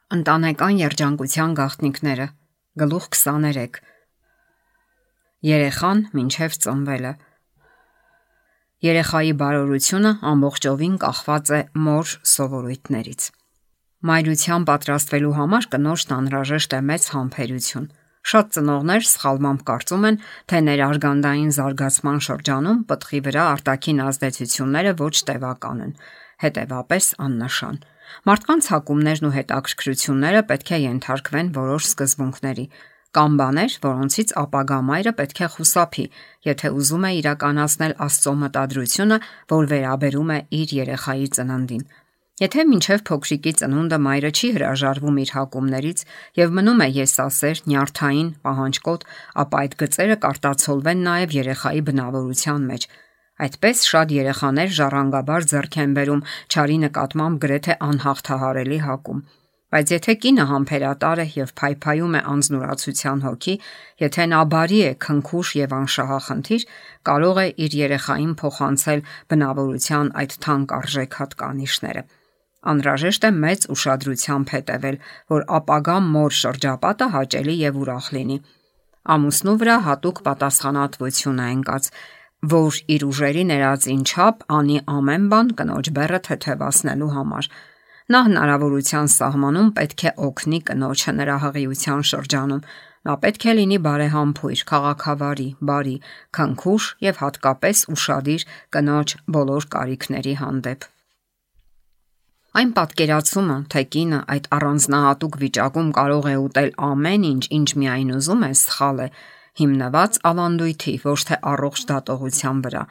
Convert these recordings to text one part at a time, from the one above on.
Ընտանեկան երջանկության գաղտնիքները գլուխ 23 Երեխան մինչև ծնվելը Երեխայի բարօրությունը ամբողջովին կախված է մոր սովորույթներից։ Մայրության պատրաստվելու համար կնոջն անհրաժեշտ է մեծ համբերություն։ Շատ ծնողներ սխալմամբ կարծում են, թե ներարգանդային զարգացման շրջանում պտղի վրա արտաքին ազդեցությունները ոչ տևական են, հետևապես աննշան։ Մարդկանց հակումներն ու հետաքրքրությունները պետք է ենթարկվեն որոշ սկզբունքների։ Կան բաներ, որոնցից ապագա մայրը պետք է խուսափի, եթե ուզում է իրականացնել Աստծո մտադրությունը, որ վերաբերում է իր երեխայի ծննդին։ Եթե մինչև փոքրիկի ծնունդը մայրը չի հրաժարվում իր հակումներից եւ մնում է եսասեր, նյարդային, պահանջկոտ, ապա այդ գծերը կարտացոլվեն նաեւ երեխայի բնավորության մեջ։ Այդպես շատ երեխաներ ժառանգաբար ձեռք են բերում չարի նկատմամբ գրեթե անհաղթահարելի հակում։ Բայց եթե կինը համբերատար է եւ փայփայում է անձնուրացության հոգի, եթե նա բարի է, քնքուշ եւ անշահախնդիր, կարող է իր երեխային փոխանցել բնավորության այդ թանկ արժեք հատկանիշները։ Անհրաժեշտ է մեծ ուշադրությամբ հետևել, որ ապագա մոր շրջապատը հաճելի եւ ուրախ լինի։ Ամուսնու վրա հատուկ պատասխանատվություն է ընկած, որ իր ուժերի ներածին չափ անի ամեն բան կնոջ բեռը թեթևացնելու համար։ Նա հնարավորության սահմանում պետք է օգնի կնոջը նրա հղիության շրջանում։ Նա պետք է լինի բարեհամբույր, քաղաքավարի, բարի, քնքուշ եւ հատկապես ուշադիր կնոջ բոլոր կարիքների հանդեպ։ Այն պատկերացումը, թե կինը այդ առանձնահատուկ վիճակում կարող է ուտել ամեն ինչ, ինչ միայն ուզում է, սխալ է, հիմնված ավանդույթի, ոչ թե առողջ դատողության վրա։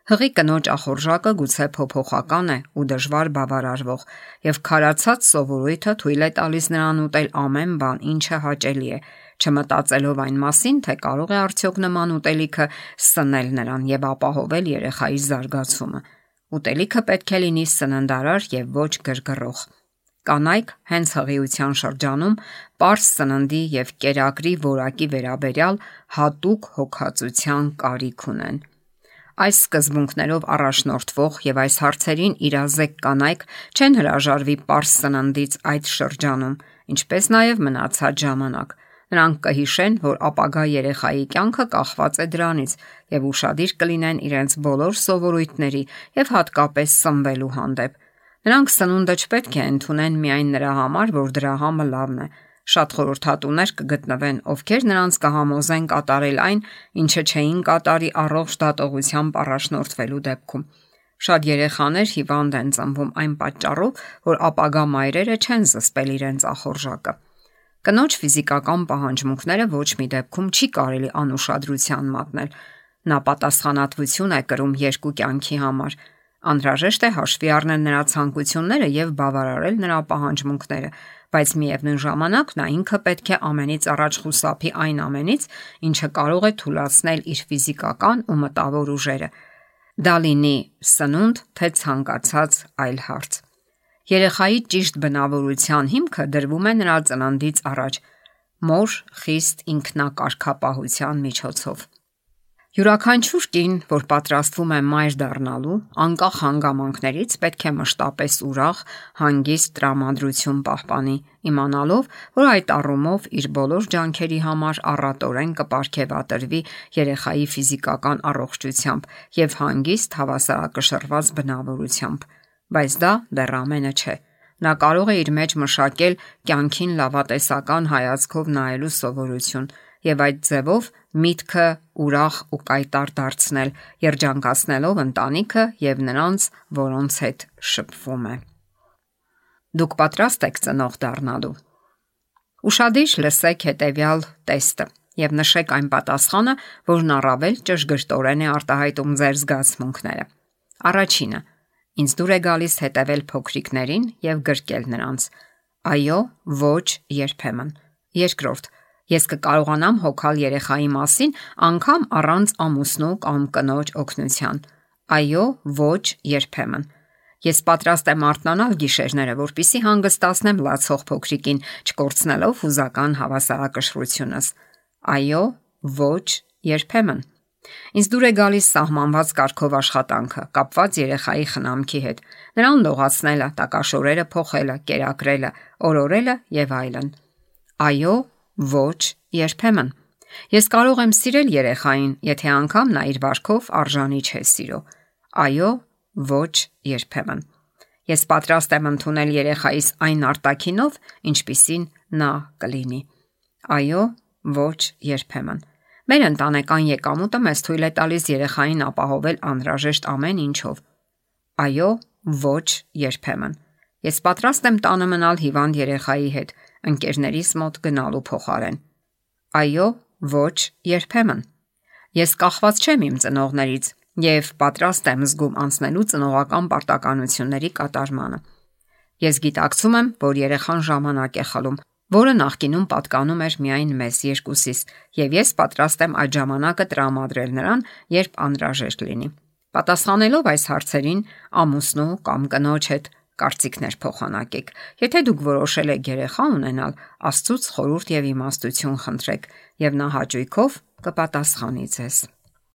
Հղի կնոջ ախորժակը գուցե փոփոխական է ու դժվար բավարարվող, եւ քարացած սովորույթը թույլ է տալիս նրան ուտել ամեն բան, ինչը հաճելի է, չմտածելով այն մասին, թե կարող է արդյոք նման ուտելիքը սնել նրան եւ ապահովել երեխայի զարգացումը։ Ուտելիքը պետք է լինի սննդարար եւ ոչ գրգռող։ Կանայք հենց հղիության շրջանում պարզ սննդի եւ կերակրի որակի վերաբերյալ հատուկ հոգացության կարիք ունեն։ Այս սկզբունքներով առաջնորդվող եւ այս հարցերին իրազեկ կանայք չեն հրաժարվի պարզ սննդից այդ շրջանում, ինչպես նաեւ մնացած ժամանակ։ Նրանք կհիշեն, որ ապագա երեխայի կյանքը կախված է դրանից եւ ուշադիր կլինեն իրենց բոլոր սովորույթների եւ հատկապես սնվելու հանդեպ։ Նրանք սնունդը չպետք է ընդունեն միայն նրա համար, որ դրա համը լավն է։ Շատ խորհրդատուներ կգտնվեն, ովքեր նրանց կհամոզեն կատարել այն, ինչը չէին կատարի առողջ դատողությամբ առաջնորդվելու դեպքում։ Շատ երեխաներ հիվանդ են ծնվում այն պատճառով, որ ապագա մայրերը չեն զսպել իրենց ախորժակը։ Կնոջ ֆիզիկական պահանջմունքները ոչ մի դեպքում չի կարելի անուշադրության մատնել։ Նա պատասխանատվություն է կրում երկու կյանքի համար։ Անհրաժեշտ է հաշվի առնել նրա ցանկությունները եւ բավարարել նրա պահանջմունքները, բայց միևնույն ժամանակ նա ինքը պետք է ամենից առաջ խուսափի այն ամենից, ինչը կարող է թուլացնել իր ֆիզիկական ու մտավոր ուժերը։ Դա լինի սնունդ, թե ցանկացած այլ հարց։ Երեխայի ճիշտ բնավորության հիմքը դրվում է նրա ծննդից առաջ մոր խիստ ինքնակարգապահության միջոցով։ Յուրաքանչյուր կին, որ պատրաստվում է մայր դառնալու, անկախ հանգամանքներից պետք է մշտապես ուրախ, հանգիստ տրամադրություն պահպանի, իմանալով, որ այդ առումով իր բոլոր ջանքերի համար առատորեն կպարգևատրվի երեխայի ֆիզիկական առողջությամբ եւ հանգիստ հավասարակշռված բնավորությամբ։ Բայց դա դեռ ամենը չէ։ Նա կարող է իր մեջ մշակել կյանքին լավատեսական հայացքով նայելու սովորություն եւ այդ ձևով միտքը ուրախ ու կայտար դարձնել, երջանկացնելով ընտանիքը եւ նրանց, որոնց հետ շփվում է։ Դուք պատրաստ եք ծնող դառնալու։ Ուշադիր լսեք հետեւյալ տեստը եւ նշեք այն պատասխանը, որն առավել ճշգրտորեն է արտահայտում ձեր զգացմունքները։ Առաջինը. Ինձ դուր է գալիս հետևել փոքրիկներին եւ գրկել նրանց։ Այո, ոչ, երբեմն։ Երկրորդ. Ես կկարողանամ հոգալ երեխայի մասին անգամ առանց ամուսնու կամ կնոջ օգնության։ Այո, ոչ, երբեմն։ Ես պատրաստ եմ արթնանալ գիշերները, որպեսզի հանգստացնեմ լացող փոքրիկին, չկորցնելով հուզական հավասարակշռությունս։ Այո, ոչ, երբեմն։ Ինձ դուր է գալիս սահմանված կարգով աշխատանքը, կապված երեխայի խնամքի հետ, նրան լողացնելը, տակաշորերը փոխելը, կերակրելը, օրորելը եւ այլն։ Այո, ոչ, երբեմն։ Ես կարող եմ սիրել երեխային, եթե անգամ նա իր վարքով արժանի չէ սիրո։ Այո, ոչ, երբեմն։ Ես պատրաստ եմ ընդունել երեխայիս այն արտաքինով, ինչպիսին նա կլինի։ Այո, ոչ, երբեմն։ Մեր ընտանեկան եկամուտը մեզ թույլ է տալիս երեխային ապահովել անհրաժեշտ ամեն ինչով։ Այո, ոչ, երբեմն։ Ես պատրաստ եմ տանը մնալ հիվանդ երեխայի հետ, ընկերներիս մոտ գնալու փոխարեն։ Այո, ոչ, երբեմն։ Ես կախված չեմ իմ ծնողներից եւ պատրաստ եմ զգում անցնելու ծնողական պարտականությունների կատարմանը։ Ես գիտակցում եմ, որ երեխան ժամանակ է խլում, որը նախկինում պատկանում էր միայն մեզ երկուսիս, եւ ես պատրաստ եմ այդ ժամանակը տրամադրել նրան, երբ անհրաժեշտ լինի։ Պատասխանելով այս հարցերին, ամուսնու կամ կնոջ հետ կարծիքներ փոխանակեք։ Եթե դուք որոշել եք երեխա ունենալ, Աստծուց խորհուրդ եւ իմաստություն խնդրեք, եւ նա հաճույքով կպատասխանի ձեզ։